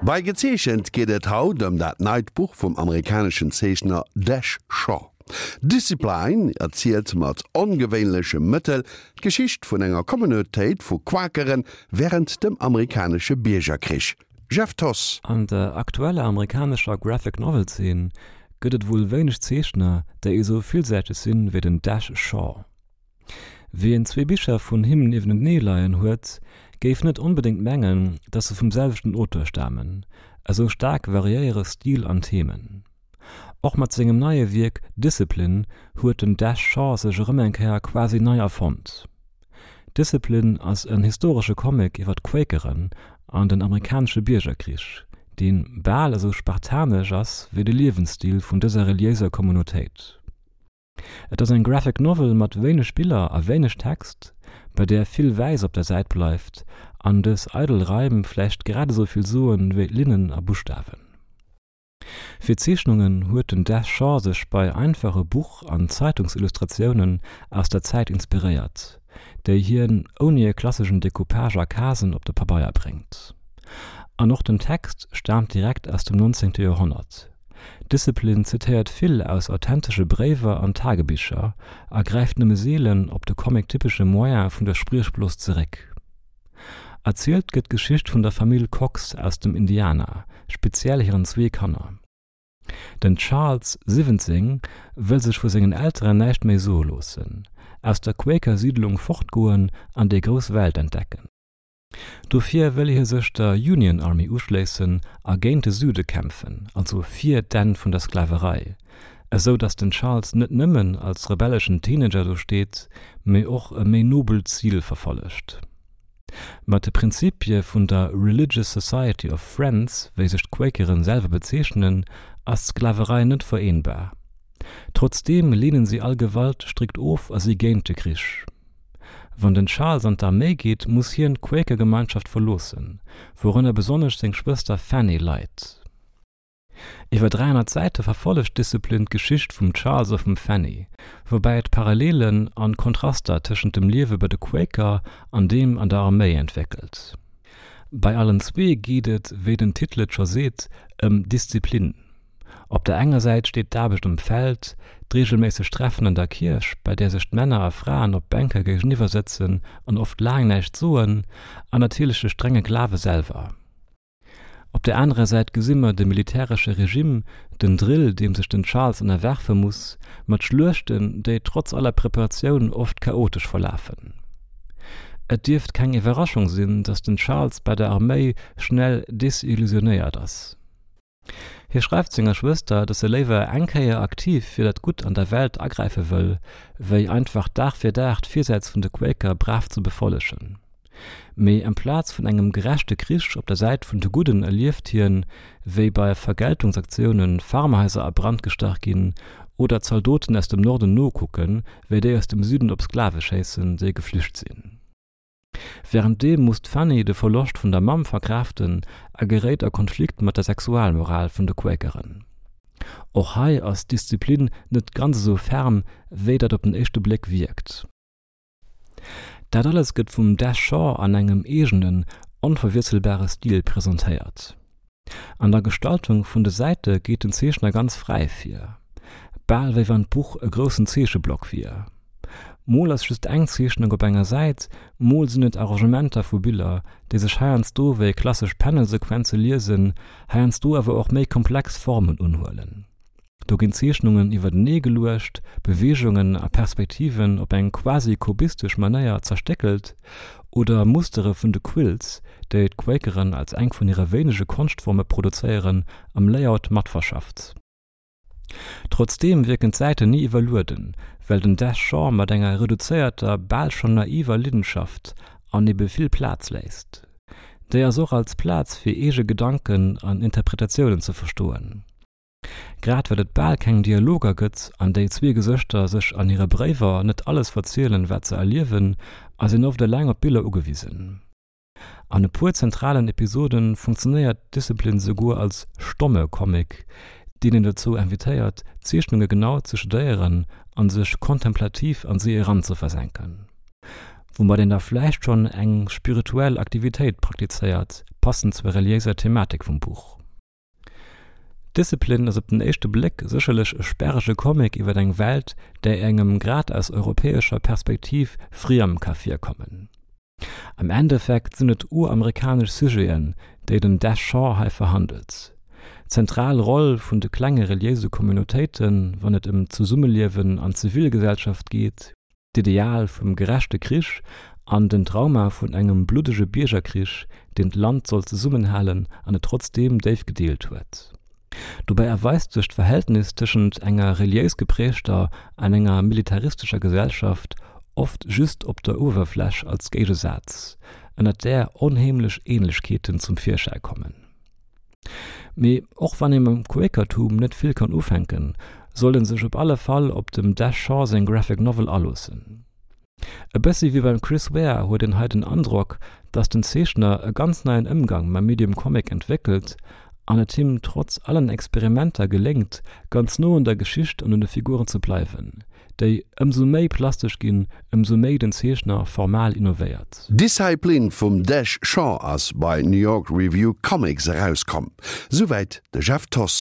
Bei Gezeechent geet et haut ëm dat neit Buch vum amerikaneschen Zeechner Dash Shaw. Discipline erzielt mat ongewéinleche Mëttel d'Geschicht vun enger Communautéit vu Quakere wärend dem amerikanesche Biergerkrich. Jeff Thoss. An der aktueller amerikanescher Graphic Novel Zeen gëtt et wuel wéineg Zeechner, déi esou villsäiteg sinn wéi den Dash Shaw. Wien zwee Bicher vun him niewentenee leien huet, géif net onbedéngt mengen, dass se vum selwechten Auteur stamen, esou staark variéiere Stil an Themen. Och mat sengem neie Wierk Discipline huet den Dash Shaw sech erëm eng Kéier quasi nei erfonnt. Discipline ass en historesche Comic iwwer d'Quakeren an den amerikanesche Biergerkrich, dee bal esou spartanesch ass wéi de Liewensstil vun dëser reliéiser Communautéit. Et ass eng Graphic Novel mat wéineg Biller a wéineg Text, bei där vill Wäiss op der Säit bleift an dës eidel Raim vläicht grad esou vill soen wéi Linnen a Buschtawen. Fir d'Zeechnungen huet den Des Shaw sech bei einfache Buch an Zeitungsillustratiounen aus der Zäit inspiréiert, déi hien ouni e klasseschen Decoupage a Casen op de Pabeier bréngt. An och den Text staamt direkt aus dem 19. Joerhonnert. Discipline zitéiert vill aus authentesche Bréiwer an Tagebicher a gräift nëmme seelen op de comic-typesche Moyen vun der Spriechblos zeréck. Erzielt gëtt d'Geschicht vun der Famill Cox aus dem Indiana, speziell hiren zwee Kanner. Den Charles, 17, wëll sech vu sengen Elteren näischt méi soe loossen, aus der Quaker-Siidlung fortgoen an déi grouss Welt entdecken. Dofir wëll hie sech der Union Army uschléissen a géint de Süde kämpfen, also fir d'Enn vun der Sklaverei, esou datt den Charles net nëmmen als rebelleschen Teenager do steet, mee och e méi nobelt Zil verfollegt. Mat de Prinzipie vun der Religious Society of Friends, wéi sech d'Quakeren selwer bezeechnen, ass d'Sklaverei net vereenbar. Trotzdeem leenen si all Gewalt strikt of a si géint de Krich. Wann den Charles an d'Arméi geet, muss hien d'Quaker-Gemeinschaft verloossen, wourënner besonnesch seng Schwëster Fanny leit. Iwwer 300 Säite verfollegt Discipline d'Geschicht vum Charles a vum Fanny, woubäi et Parallelen an Kontraster tëschent dem Liewe bei de Quaker an deem an der Arméi entwéckelt. Bei allen zwee geet et, wéi den Titel et scho seet, ëm Disziplin. Op der enger Säit steet d'Aarbecht um Feld, d'reegelméisseg Treffen an der Kierch, bei där sech d'Männer a Fraen op Bänke géigeniwwer sëtzen an oft laang näischt soen, an natierlech de strenge Glawe selwer. Op der anerer Säit gesi mer de militäresche Regime, den Drill, deem sech den Charles ënnerwerfe muss, mat Schluechten, déi trotz aller Preparatioun oft chaotesch verlafen. Et dierft keng Iwwerraschung sinn, datt den Charles bei der Arméi schnell desillusionéiert ass. Hie schreift senger Schwëster, datt e léiwer eng Kéier aktiv fir dat Gutt an der Welt agräife wëll, wéi einfach Dag fir Dag d'Virsätz vun de Quaker brav ze befollegen. Mee amplaz vun engem gerechte Krich op der Säit vun de Gudden erlieft hien, wéi bei Vergeltungsaktioune Farmhaiser a Brand gestach ginn oder Zaldoten aus dem Norden nokucken, wéi déi aus dem Süden op Sklave schéissen, déi geflücht sinn. Wärenddeem muss d'Fanny de Verloscht vun der Mamm verkraaften a geréit a Konflikt mat der Sexualmoral vun de Quakeren. Och hei ass d'Disziplin net ganz esou ferm, wéi dat op den éischte Bléck wierkt. Dat alles gëtt vum Des Shaw an engem eegenen, onverwiesselbare Stil presentéiert. An der Gestaltung vun de Säite geet den Zeechner ganz fräi vir, bal wéi wann d'Buch e groussen Zeecheblock wier. Mol ass just eng Zeechnung op enger Säit, mol sinn et Arrangementer vu Biller, déi sech heiansdo wéi klassesch Panelsequenze liesen, heiansdo awer och méi komplex Formen unhuelen. Do ginn Zeechnungen iwwertenee geluecht, Beweegungen a Perspektiven op eng quasi kubistesch Manéier zerstéckelt oder Mustere vun de Quilts, déi d'Quakeren als eng vun hire wéinege Konschtforme produzéieren, am Layout matverschafft. Trotzdeem wierken d'Säiten ni iwwerlueden, well den Des Shaw mat enger reduzéierter, bal schonn naiver Liddenschaft an ebe vill Plaz léisst. Déi ass och als Plaz fir eege Gedanken an Interpretatiounen ze verstoen. Grad well et bal keng Dialoger gëtt an déi zwee Gesëschter sech an hire Bréiwer net alles verzielen, wat se erliewen, ass een oft eleng op d'Biller ugewisen. An e puer zentralen Episode funktionéiert Discipline souguer als stomme Comic, deen een dozou invitéiert, d'Zeechnunge genau ze studéieren an sech kontemplativ an si eranzeversenken. Woumat een da vläicht schonn eng spirituell Aktivitéit praktizéiert. Passend zur reliéiser Thematik vum Buch. Discipline ass op den éischte Bléck sécherlech e sperrege Comic iwwer eng Welt, déi engem grad aus europäescher Perspektiv friem ka virkommen. Am Endeffekt sinn et uramerikanesch Sujeten, déi den Dash Shaw hei verhandelt. D'zentral Roll vun de klenge reliéise Communautéiten, wann et ëm d'Zesummeliewen an d'Zivilgesellschaft geet, d'Ideal vum gerechte Krich an den Trauma vun engem bluddege Biergerkrich, deen d'Land sollt zesummenhalen an et trotzdeem déif gedeelt huet. Dobäi erweist sech d'Verhältnis tëschent enger reliéis geprägter an enger militaristescher Gesellschaft oft just op der Uewerfläch als Géigesaz, ënnert där onheemlech Ähnlechkeeten zum Virschäi kommen. Mee och wann ee mam Quäkertum net vill kann ufänken, sollt en sech op alle Fall op dem Dash Shaw seng Graphic Novel aloossen. E bëssi wéi beim Chris Ware huet een hei den Androck, dass den Zeechner e ganz neien Ëmgang mam Medium Comic entwéckelt an et him trotz allen Experimenter geléngt, ganz no un der Geschicht an un de Figuren ze bleiwen. déi ëmsou méi plastesch ginn, ëmsou méi den Zeechner formal innovéiert. Discipline vum Dash Shaw ass bei New York Review Comics erauskomm. Souwäit de Jeff Thoss.